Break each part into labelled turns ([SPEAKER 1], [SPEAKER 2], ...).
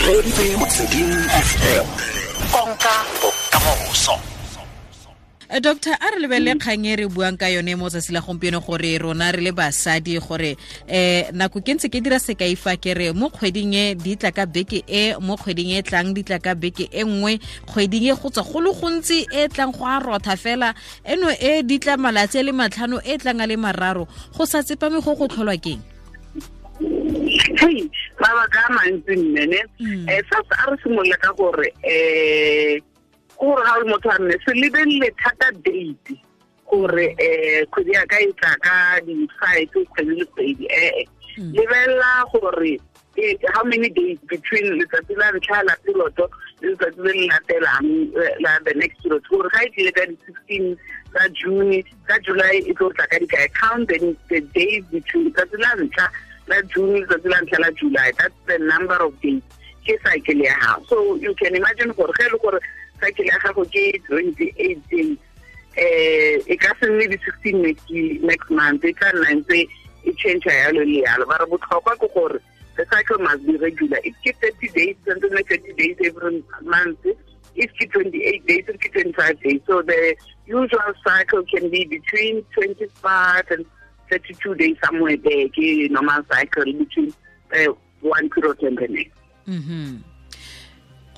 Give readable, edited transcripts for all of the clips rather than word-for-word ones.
[SPEAKER 1] Reeditse Motsweding FM. Konka bokamoso.
[SPEAKER 2] Doctor, a re lebelele kgang e re buang ka yone mo tsatsi la gompieno gore rona re le basadi gore nako ke ntse ke dira sekai fa ke re mo kgweding e di tla ka beke e, mo kgweding e tlang di tla ka beke e nngwe, kgweding e go tswa go le gontsi e tlang go a rotha fela eno e di tla malatsi a le 5 e tlang a le 3, go sa tsepame go go tlholwa keng?
[SPEAKER 3] Hey, mabaka a mantsi mme ne first a re simolola ka gore gore ga o le motho a mme se lebelele thata date gore kgwedi ya ka e tla ka di-5 kgwedi le kgwedi, lebelela gore how many days between letsatsi la ntlha la period le letsatsi le le latelang la the next period, gore ga e tlile ka di-16 tsa June, ka July e tlo tla ka dikae. Count the days between letsatsi la ntlha la June letsatsi la ntlha la July, that's the number of days ke cycle ya gago. So you can imagine gore ge e le gore cycle ya gago ke 28 days, e ka se nne di-16 next month, e tla nna ntse e change yalo le yalo. Ba re botlhokwa ke gore the cycle must be regular. If ke 30 days, tshwanetse nne 30 days every month. If ke 28 days, if ke 25 days. So the usual cycle can be between 25 and 32 days, somewhere there, ke normal cycle between one period and the next.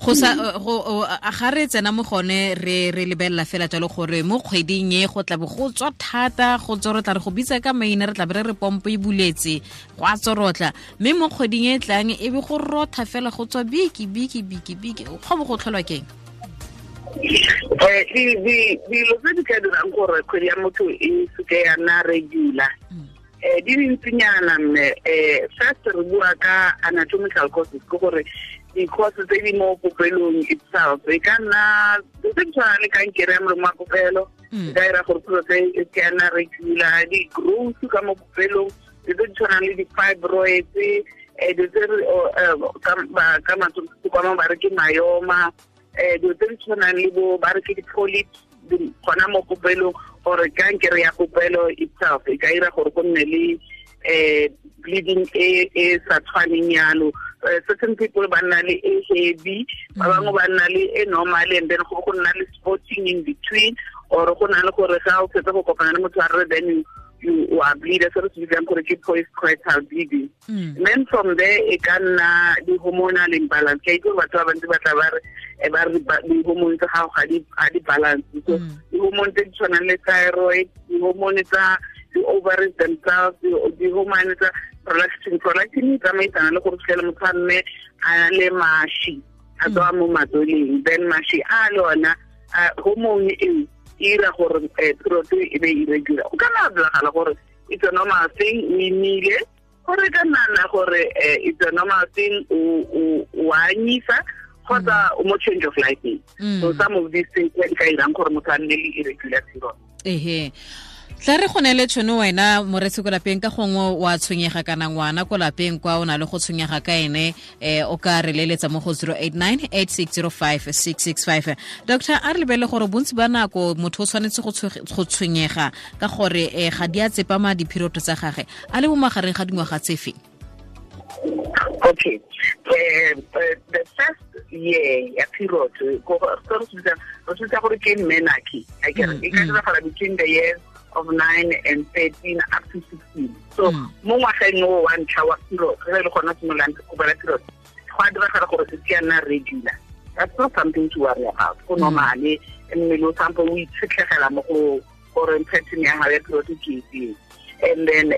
[SPEAKER 2] Go sa go ga re tsena mo gone re lebelela fela jalo gore mo kgweding e go tla bo go tswa thata, go tsorotla, re go bitsa ka maina, re tla be re pompo e buletse go a tsorotla, mme mo kgweding e tlang e be go rotha fela go tswa biki biki biki biki, go bo go tlholwa keng?
[SPEAKER 3] Dilo tse di ka dirang gore kgwedi ya motho e seke ya nna regular di dintsinyana mme. First re bua ka anatomical causes, ke gore di-causes tse di mo popelong itself, e ka nna tse di tshwana le kankere ya molomo wa popelo, e ka dira gore period e seke ya nna regular, di-growth ka mo popelong, tse di tshwanang le di-fibroids, dilo tse ka matsogo ba re ke myoma, dilo tse di tshwanang le bo ba re ke di-polyps gona mo popelong, or kankere ya popelo itself e ka dira gore go nne le bleeding e sa tshwaneng yalo. Certain people ba nna le e heavy, ba bangwe ba nna le e normal, and then go nna le spotting in between, or go na le gore ga o fetsa go kopana le motho wa rre, then you are bleeder, se re se bitsang gore ke postcoital bleeding. And then from there e ka nna di-hormonal imbalance. Ke itse gore batho ba bantsi ba tla ba re di-hormone tsa gago ga di balance. So di-hormone tse di tshwanang le thyroid, di-hormone tsa di-ovaries themselves, di-hormone tsa prolactin. Prolactin e tsamaisana le gore fitlhele motho a mme a le mashi a tswa mo matsweleng, then mashi a le ona hormone eo e ira gore period e be irregular. O ka nna diragala gore it's a normal thing, o imile, gore ka nna gore it's a normal thing, o anyisa, kgotsa o mo change of life. So some of these things di ka irang gore motho a nne le irregular period.
[SPEAKER 2] Ehe, tla re go neele tšhono wena moretsi ko lapeng, ka gongwe wa tshwenyega kana ngwana ko lapeng kwa o na le go tshwenyega ka ene, o ka re leletsa mo go 089 8605 665. Doctor, a re lebelele gore bontsi ba nako motho o tshwanetse go tshwenyega ka gore ga di a tsepama di-period tsa gage a le mo magareng ga dingwaga tse feng?
[SPEAKER 3] Okay, the first year ya period, re bitsa gore ke menarche, e ka diragala between the years of 9 and 13 up to 16. So mo ngwageng o wa ntlha wa period, ge le gona simololang go bona period, go a diragala gore se ke ya nna regular. That's not something to worry about. Go normale, mmele o sampo o itshetlegela mo go gore pattern ya gago ya period ke efeng. And then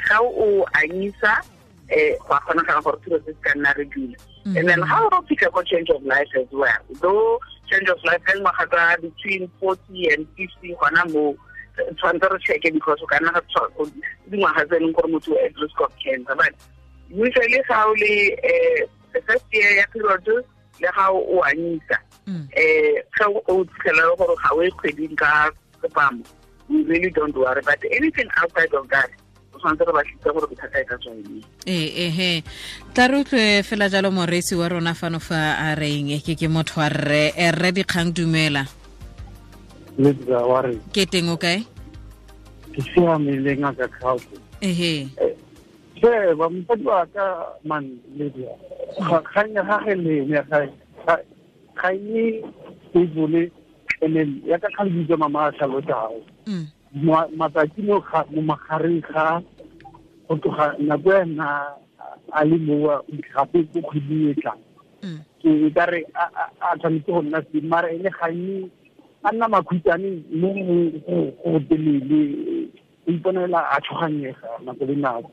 [SPEAKER 3] ga o anyisa, go a kgonagala gore period se ka nna regular. And then how o fitlha ko change of life as well. Though change of life ka dingwaga tsa between 40 and 50, gona mo tshwanetse re check-e because o ka nna dingwaga tse e leng gore motho o at risk of cancer. But usually ga o le the first year ya period le ga o anyisa, ga o fitlhela gore ga o e kgweding ka tsepamo, we really don't worry. But anything outside of that, o tshwanetse re batlise gore bothata e ka tswa eng.
[SPEAKER 2] Ehe, tla re utlwe fela jalo moreetsi wa rona fano fa a reng ke motho wa rre, rre Dikgang, dumela. Ke teng o kae?
[SPEAKER 4] Ke siame le ngaka Kgaotso.
[SPEAKER 2] Ehe.
[SPEAKER 4] Che, ba mosadi wa ka man Lydia. Kgang ya gage le ene ga e stable, and ya ka kgang bitsa mama a tlhalosago. Matsatsi mo magareng ga go tloga nako ya nna a le mowa gape ko kgweding e tlang. Ke ka re a tshwanetse go nna se mara ene ga e a nna makhutshwane mo go telele, o iponela a tshoganyega nako le nako.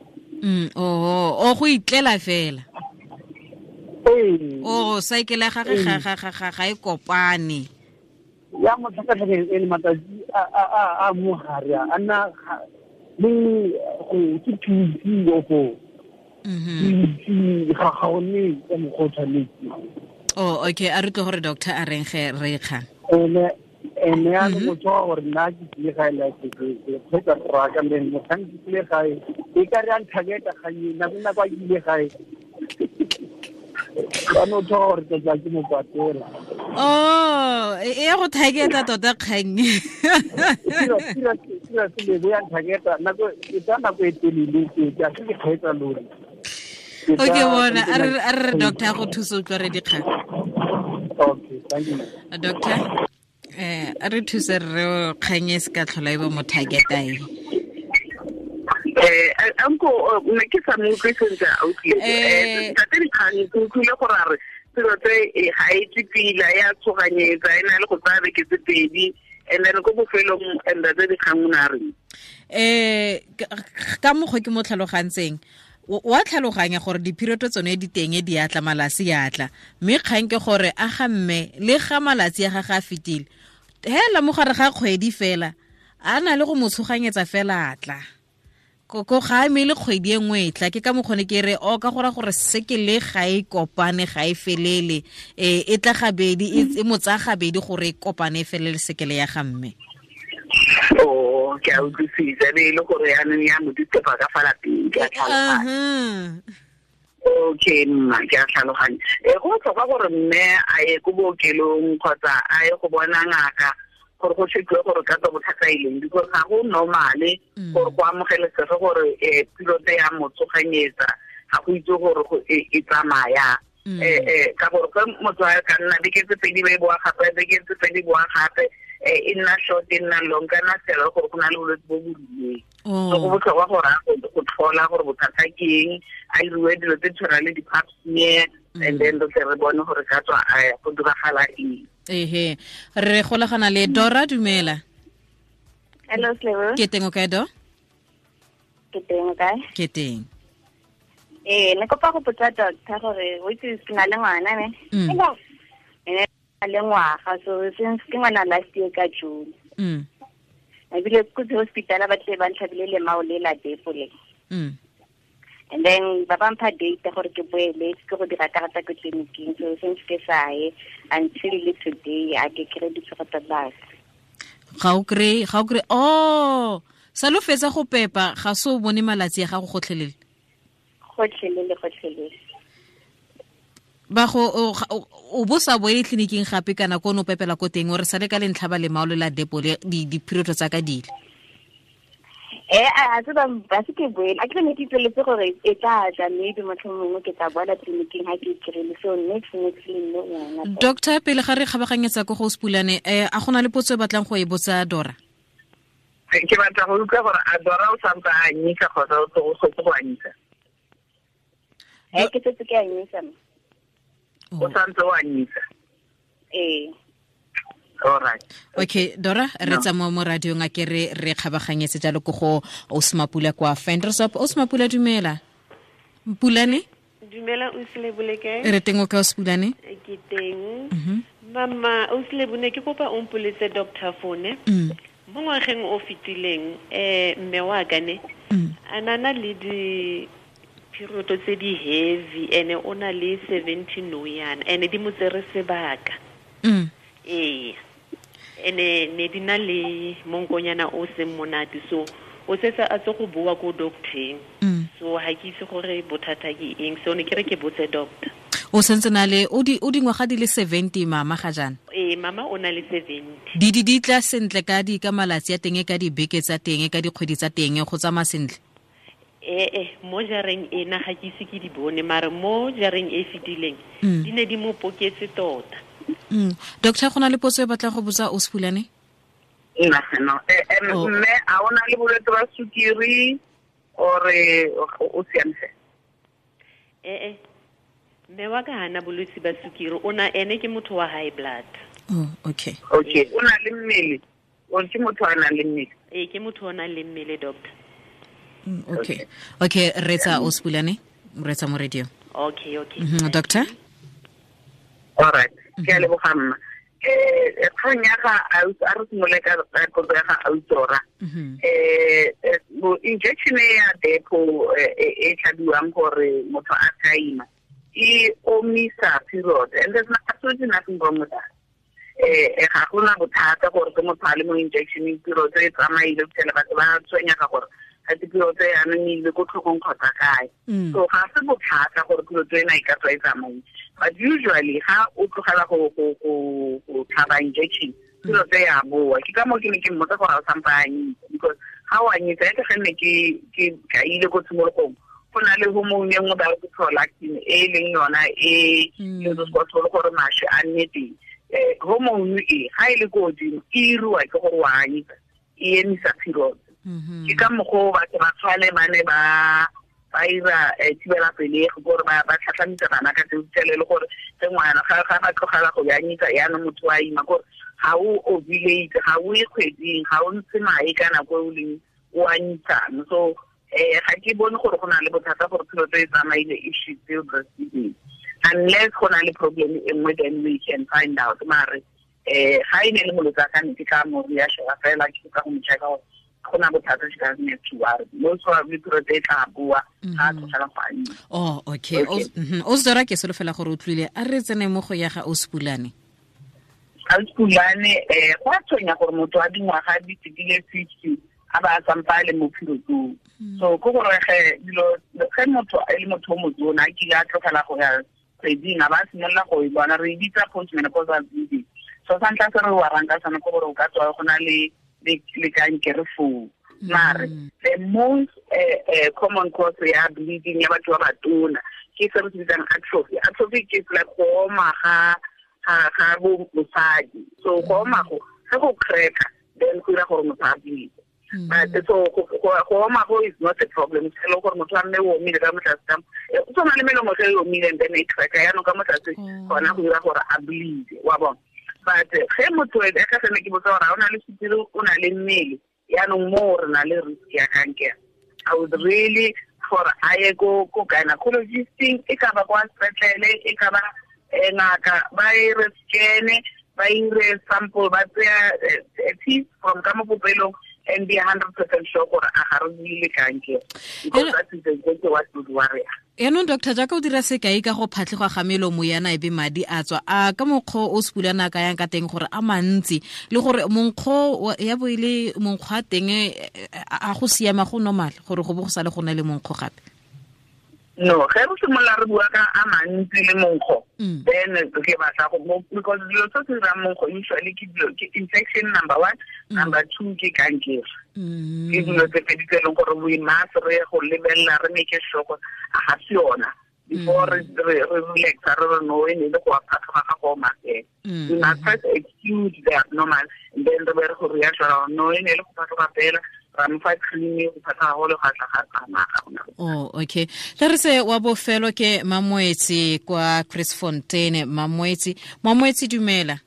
[SPEAKER 2] O go itlela fela.
[SPEAKER 4] Ee.
[SPEAKER 2] O cycle ya gagwe ga e kopane.
[SPEAKER 4] Ya mo tlhakatlhakeng e le matsatsi a mo gare a nna le go ke 2 or 4. Ga ga one ka mokgwa o tshwanetse.
[SPEAKER 2] Oh, okay, a re tle gore doctor a reng ge re kgang.
[SPEAKER 4] Ene ya le motho wa gore nna ke tlile gae la ke kgwetsa rraka le motlhang ke tlile gae e ka re a nthaketa kganye nako nako a ke ile gae ba no tshwa gore ke tla ke mo kwatela.
[SPEAKER 2] Oh, e ya go thaketa tota kgang.
[SPEAKER 4] Tira se le ya nthaketa nako e tsa nako e telele ke a se ke kgwetsa lori.
[SPEAKER 2] Okay, bona a re doctor go thusa utlwa re dikgang.
[SPEAKER 4] Okay, thank you.
[SPEAKER 2] Doctor, a re thuse re kgang e se ka tlhola e ba mo thaketa e.
[SPEAKER 3] Anko ne ke sa mo utlwe sentle a utlwile. Ntate Dikgang ke utlwile gore a re selo tse ga e tle pila ya tshoganyetsa e na le go tsaya beke tse pedi, and then ko bofelong ntate Dikgang o ne a reng?
[SPEAKER 2] Ka mokgwa ke mo tlhalogantseng, wa tlhaloganya gore diphiroto tsone di teng di atla malatsi ya atla, mme kgang ke gore a ga mme le ga malatsi a gagwe a fetile hela mo gare ga kgwedi fela a na le go mo tshoganyetsa fela atla ko ga eme le kgwedi e nngwe e tla. Ke ka mokgone ke re o ka gora gore sekele ga e kopane ga e felele, e tla gabedi e mo tsaya gabedi gore e kopane e felele sekele ya ga mme.
[SPEAKER 3] Oh, ke a utlwisisa be e le gore yaanong ya mo ditepa ka fa lapeng, ke a tlhaloganya. Okay, mma, ke a tlhaloganya. Go botlhokwa gore mme a ye ko bookelong kgotsa a ye go bona ngaka gore go chekiwe gore ka tswa bothata e leng, because ga go normale gore go amogelesege gore piloto ya mo tshoganyetsa, ga go itse gore e tsamaya. Ka gore ge motho a ka nna beke tse pedi ba e boa gape, beke tse pedi boa gape, e nna short e nna long, kana fela gore go na le bolwetse bo bo rileng. So go botlhokwa gore a go tlhola gore bothata ke eng, a iriwe dilo tse tshwana le di-pap smear, and then re tle re bone gore ka tswa go diragala eng.
[SPEAKER 2] Ehe, re golagana le Dora. Dumela.
[SPEAKER 5] Hello, Slebo.
[SPEAKER 2] Ke teng o kae, Do?
[SPEAKER 5] Ke teng o kae?
[SPEAKER 2] Ke teng.
[SPEAKER 5] Ne kopa go botsa doctor gore o itse ke na le ngwana ne. Le ngwaga, so since ke ngwana last year ka June. Ebile ko hospital ba tle ba ntlhabile lemao le la depo le. And then ba ba mpha date gore ke boele ke go dira karata ko tleliniking, so since ke sa ye until le today a ke kry ditshego tsa base.
[SPEAKER 2] Ga o kry, oh, sa lo fetsa go pepa ga so bone malatsi a gago gotlhelele.
[SPEAKER 5] Gotlhelele.
[SPEAKER 2] Ba go o bo sa boele tleliniking gape kana ko no pepela ko teng, o re sale ka lentlha ba lemao le la depo le di-period tsa ka dile.
[SPEAKER 5] A se ba se ke boele, a ke ne ke itseletse gore e tla tla maybe motlhomongwe ke tla boela tleliniking ha ke kry-ile, so next le nne ngwana.
[SPEAKER 2] Doctor, pele ga re kgabaganyetsa ko go Sepulane, a gona le potso e batlang go e botsa Dora?
[SPEAKER 3] Ke batla go utlwa gore a Dora o santse a anyisa kgotsa o tlogetse go anyisa?
[SPEAKER 5] Ke setse ke anyisa.
[SPEAKER 3] O santse o anyisa?
[SPEAKER 5] Ee.
[SPEAKER 3] All right.
[SPEAKER 2] Okay, Dora, re tsamaya mo radiong a ke re kgabaganyetse jalo ko go Osmapula kwa Ventersdorp. Osmapula, dumela. Mpulane?
[SPEAKER 6] Dumela, Oslebo, le kae?
[SPEAKER 2] Re teng o kae, Osmapulane?
[SPEAKER 6] Ke teng. Mama, Oslebo, ne ke kopa o mpoletse doctor phone. Mo ngwageng o fetileng, mme wa ka ne a nana le di period tse di heavy, ene o na le 70 no yana, ene di mo tsere sebaka. Ee, ene ne di na le monkonyana o seng monate, so o setse a tse go boa ko docteng. So ha ke itse gore bothata ke eng, so ne ke re ke botse doctor.
[SPEAKER 2] O sentse na le o dingwaga di le 70 mama ga jaana?
[SPEAKER 6] Ee, mama o na le 70.
[SPEAKER 2] Di tla sentle ka di ka malatsi a teng, ka dibeke tsa teng, ka dikgwedi tsa teng, go tsamaya sentle?
[SPEAKER 6] Mo jareng ena ga ke ise ke di bone, mare mo jareng e fetileng di ne di mo poketse tota.
[SPEAKER 2] Doctor, go na le potso e batla go botsa o Sepulane?
[SPEAKER 3] No. Mme a o na le bolwetse ba sukiri ore o siame?
[SPEAKER 6] Mme wa ka hana bolwetse ba sukiri, o na ene ke motho wa high blood.
[SPEAKER 2] Oh, okay.
[SPEAKER 3] Okay, o na le mmele. O ke motho a nang le mmele.
[SPEAKER 6] Ee, ke motho o nang le mmele, doctor.
[SPEAKER 2] Okay. Okay, retsa o Sepulane, retsa mo radio.
[SPEAKER 6] Okay.
[SPEAKER 2] Doctor?
[SPEAKER 3] All right. Ke a leboga mma. Kgang ya ga a re simole ka potso ya ga Autora. Injection ya depo e tlhabiwang gore motho a ka ima e omisa period, and there's absolutely nothing wrong with that. Ga gona bothata gore ke motho a le mo injection period e tsamaile go fitlhela batho ba tshwenyega gore ga te period e anong e ile ko tlhogong kgotsa kae. So ga se bothata gore period ena e ka tswa e tsamaile. But usually ga o tlogela go tlhaba injection, period e ya boa. Ke ka moo ke ne ke mmotsa gore a o sampa a anyisa, because ga o anyisa e ke ne ke kaile ko tshimologong, go na le hormone e nngwe ba re ke prolactin e leng yona e e gore mašwi a nne teng. Hormone e ga e le ko godimo e iriwa ke gore wa anyisa, e emisa period. Ke ka mokgwa o batho ba tshwane ba ne ba ira thibela pelegi gore ba tlhatlhamisa bana ka tseo le gore ge ngwana ga ba tlogela go anyisa yaanong motho wa ima, gore ga o ovulate, ga o ye kgweding, ga o ntshe mae ka nako e o leng o anyisang. So ga ke bone gore go na le bothata gore period e tsamaile if she's still breastfeeding, unless go na le problem e nngwe, then we can find out. Mare ga e ne le molwetse a ka ne ke tla mo reassure fela, ke ka go mo checka gore go na bothata, she doesn't have to worry. Most probably period e tla boa ga a tlogela go anyisa.
[SPEAKER 2] Oh, okay. O Zora, ke solofela gore o tlwile. A re tsene mo go ya ga o Sepulane.
[SPEAKER 3] Ga Sepulane, go a tshwenya gore motho wa dingwaga di fetile 50 a ba a sampa a le mo periodong. So ke gore ge dilo ge motho e le motho o motona a kile a tlogela go ya kgweding, a ba a simolola go e bona, re e bitsa postmenopausal bleeding. So sa ntlha se re warang ka sone ke gore o ka tswa go na le kankere foo. Mare the most common cause ya bleeding ya batho ba batona ke se re se bitsang atrophy. Atrophy ke like go oma ga bosadi. So go oma go ge go cracker, then go dira gore motho a bleed. But so go oma go is not a problem. Se le gore motho a mme o omile ka mo tlase ka o tshwana le melomo ge e omile and then e cracker yaanong ka mo tlase gona go dira gore a bleed, wa bona. But ge motho e ka sene ke botsa gore ga o na le sukiri, o na le mmele, yaanong mo re na le risk ya kankere. I would really gore a ye ko gynecologist-ing, e ka ba kwa sepetlele, e ka ba ngaka, ba e re scan-e, ba ire sample, ba tseya piece from ka mo popelong and be 100% sure gore a ga re buile kankere, because that is exactly what would worry us.
[SPEAKER 2] Yaanong doctor, jaaka o dira sekai ka go phatlhegwa ga melomo yana e be madi a tswa, a ka mokgwa o Sepulane a ka yang ka teng gore a mantsi le gore monkgo ya bo e le monkgo a teng a go siama, go normal gore go bo go sale go na le monkgo gape?
[SPEAKER 3] No, ge re simolola re bua ka a mantsi le monkgo, then ke batla go, because dilo tse se dirang monkgo usually ke dilo ke infection number 1, number 2 ke kankere. Ke dilo tse pedi tse e leng gore we must re go lebelela, re make sure gore a ga se yona before re relaxa, re re no e ne le go phatlhoga ga go oma fela. We must first exclude the abnormal, and then re be re go reassure no e ne le go phatlhoga fela, ra mo fa cream go phatlhoga go le ga tla ga tsamaya ga gona.
[SPEAKER 2] Oh, okay. Tla re se wa bofelo ke Mamoetsi kwa Chris Fontaine. Mamoetsi, dumela.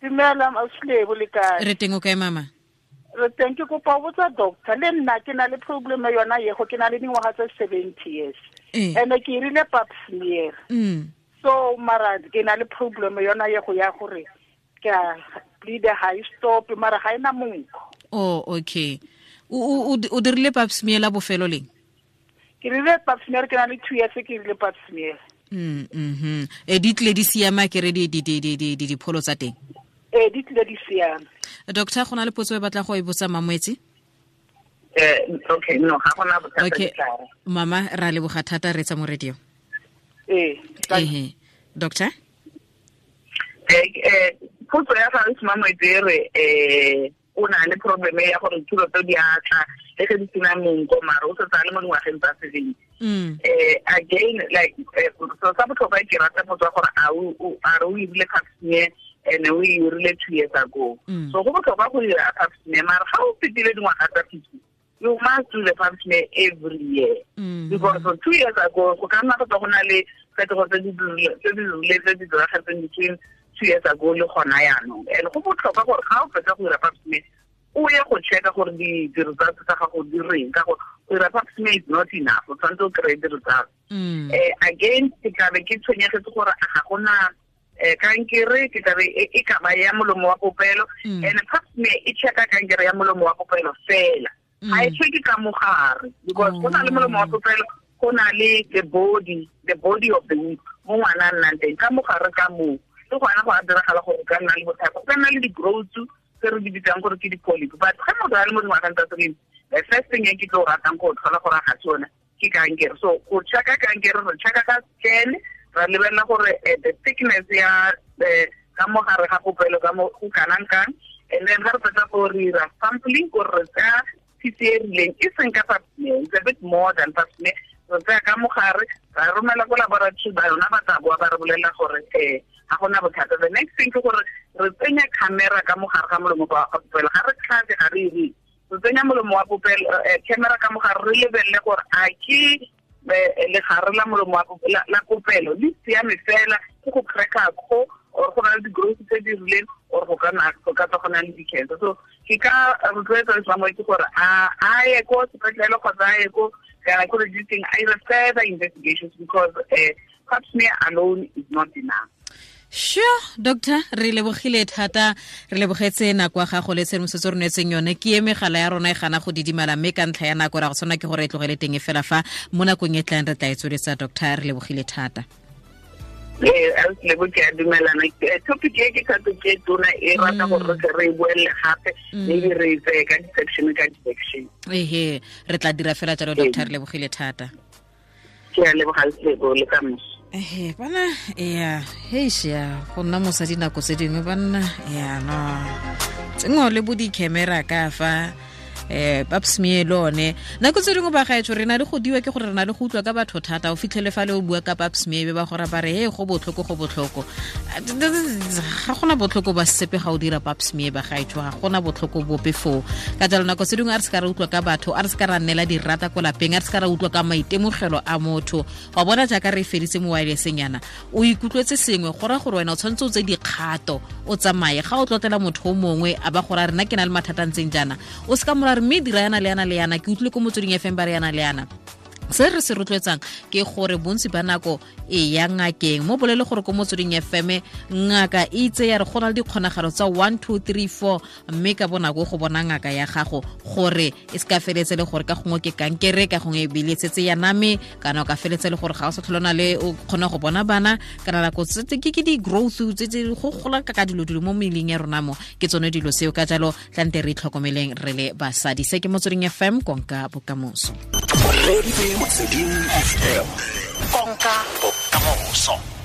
[SPEAKER 7] Dumela, Auslebo, le kae?
[SPEAKER 2] Re teng, o kae mama?
[SPEAKER 7] Re teng. Ke kopa ho botsa doctor, le nna ke na le problem yona yego, ke na le dingwaga tse 70 years. And ke irile pap smear. So mara ke na le problem yona yego ya gore ke a bleed high stop, mara ga ena monkgo.
[SPEAKER 2] Oh, okay. O dirile pap smear la bofelo leng?
[SPEAKER 7] Ke rile pap smear ke na le 2 years ke rile pap smear.
[SPEAKER 2] E di tle di siama ke re di dipholo tsa teng?
[SPEAKER 7] Di tle di siama.
[SPEAKER 2] Doctor, go na le potso e batla go e botsa Mamoetsi?
[SPEAKER 3] Okay, no, ga gona bothata.
[SPEAKER 2] Okay. Mama, ra leboga thata, re tsa mo radio. Doctor?
[SPEAKER 3] Potso ya ga Mamoetsi e re o na le problem ya gore dithulo tse di a tla le ge di sena monko mare o setse a le mo dingwageng tsa 70. Again, like so sa botlhokwa ke rata potso ya gore a re o irile pap smear and o e irile 2 years ago. So go botlhokwa go dira pap smear, mare ga o fetile dingwaga tsa 50, you must do the pap smear every year. Because for 2 years ago, go ka nna go na le phetogo tse di rileng tse di diragetseng between 2 years ago le gona yaanong. And go botlhokwa gore ga o fetsa go dira pap smear, o ye go checka gore di-results tsa gago di reng, ka gore go dira pap smear is not enough, o tshwanetse o kry-e di-results. Again, ke tlabe ke tshwenyegetse gore ga gona kankere, ke tlabe e ka ba ya molomo wa popelo, and pap smear e checka kankere ya molomo wa popelo fela. Ga e checke ka mogare, because go na le molomo wa popelo, go na le the body of the womb mo ngwana a nnang teng, ka mogare ka moo le gona go a diragala gore ka nna le bothata, go ka nna le di-growth tse re di bitsang gore ke di-polyp. But ga motho a le mo dingwageng tsa 70, the first thing e ke tlo ratang go tlhola gore ga se yone ke kankere. So go checka kankere, re checka ka scan, ra lebelela gore the thickness ya ka mogare ga popelo ka mo go kanang kang, and then ga re fetsa go dira sampling gore re tsaya piece e rileng, e seng ka pap smear, it's a bit more than pap smear. Re tsaya ka mogare, ra romela ko laboratory ba yona, ba tla boa ba re bolelela gore ga gona bothata. The next thing ke gore re tsenya camera ka mogare ga molomo wa popelo, ga re tlhatse, ga re ire, re tsenya molomo wa popelo, camera ka mogare, re lebelele gore a ke legare la molomo wa la popelo le siame fela, ke go cracka kgo or go na le di-growth tse di rileng, or go ka tswa go na le di-cancer. So ke ka rotloetsa lesamo ke gore a ye ko sepetlele kgotsa a ye ko gynecologist, a ire further investigations, because pap smear alone is not enough.
[SPEAKER 2] Sure, doctor, re lebogile thata, re lebogetse nako ya gago le tshedimosetso re neetseng yone. Ke e megala ya rona e gana go didimala, mme ka ntlha ya nako ra go tshwana ke gore e tlogele teng e fela fa mo nakong e tlang re tla e tsweletsa. Doctor, re lebogile thata.
[SPEAKER 3] Lebo ke a dumelana. Topic e ke topic e tona e rata gore re e boelele gape, maybe re e tseye ka di-section ka di-section.
[SPEAKER 2] Ehe, re tla dira fela jalo, doctor, re lebogile thata.
[SPEAKER 3] Ke a leboga Lebo le ka moso.
[SPEAKER 2] Ehe, bana, ya, heisha, go nna mosadi nako tse dingwe banna, ya no. Tsengo le bo di-camera ka fa pap smear le one. Nako tse dingwe ba gaetsho re na le go diwa ke gore re na le go utlwa ka batho thata, o fitlhele fa le o bua ka pap smear be ba gore ba re he go botlhoko, go botlhoko. Ga gona botlhoko ba sepe ga o dira pap smear ba gaetsho, ga gona botlhoko bope foo. Ka jalo nako tse dingwe a re se ka re utlwa ka batho, a re se ka ra nnela dirata ko lapeng, a re se ka ra utlwa ka maitemogelo a motho. Wa bona jaaka re feditse mo wirelesseng yana, o ikutlwetse sengwe, go raya gore wena o tshwanetse o tse dikgato, o tsamaye. Ga o tlotlela motho o mongwe a ba gore a rena ke na le mathata a ntseng jaana, o se ka mora re mme dira yana le yana le yana, ke utlwile ko Motsweding FM ba re yana le yana. Se re se rotloetsang ke gore bontsi ba nako e ya ngakeng, mo bolele gore ko Motsweding FM ngaka e itse ya re go na le dikgonagalo tsa 1 2 3 4, mme ka bonako go bona ngaka ya gago gore e se ka feletse le gore ka gongwe ke kankere, ka gongwe e bile setse ya name, kana o ka feletse le gore ga o sa tlhole o na le o kgona go bona bana, kana nako tse ke di-growth tse go gola ka dilo dilo mo mmeleng ya rona mo, ke tsone dilo seo. Ka jalo tlante re itlhokomeleng re le basadi. Se ke Motsweding FM, konka bokamoso.
[SPEAKER 1] Motsweding FM, konka bokamoso.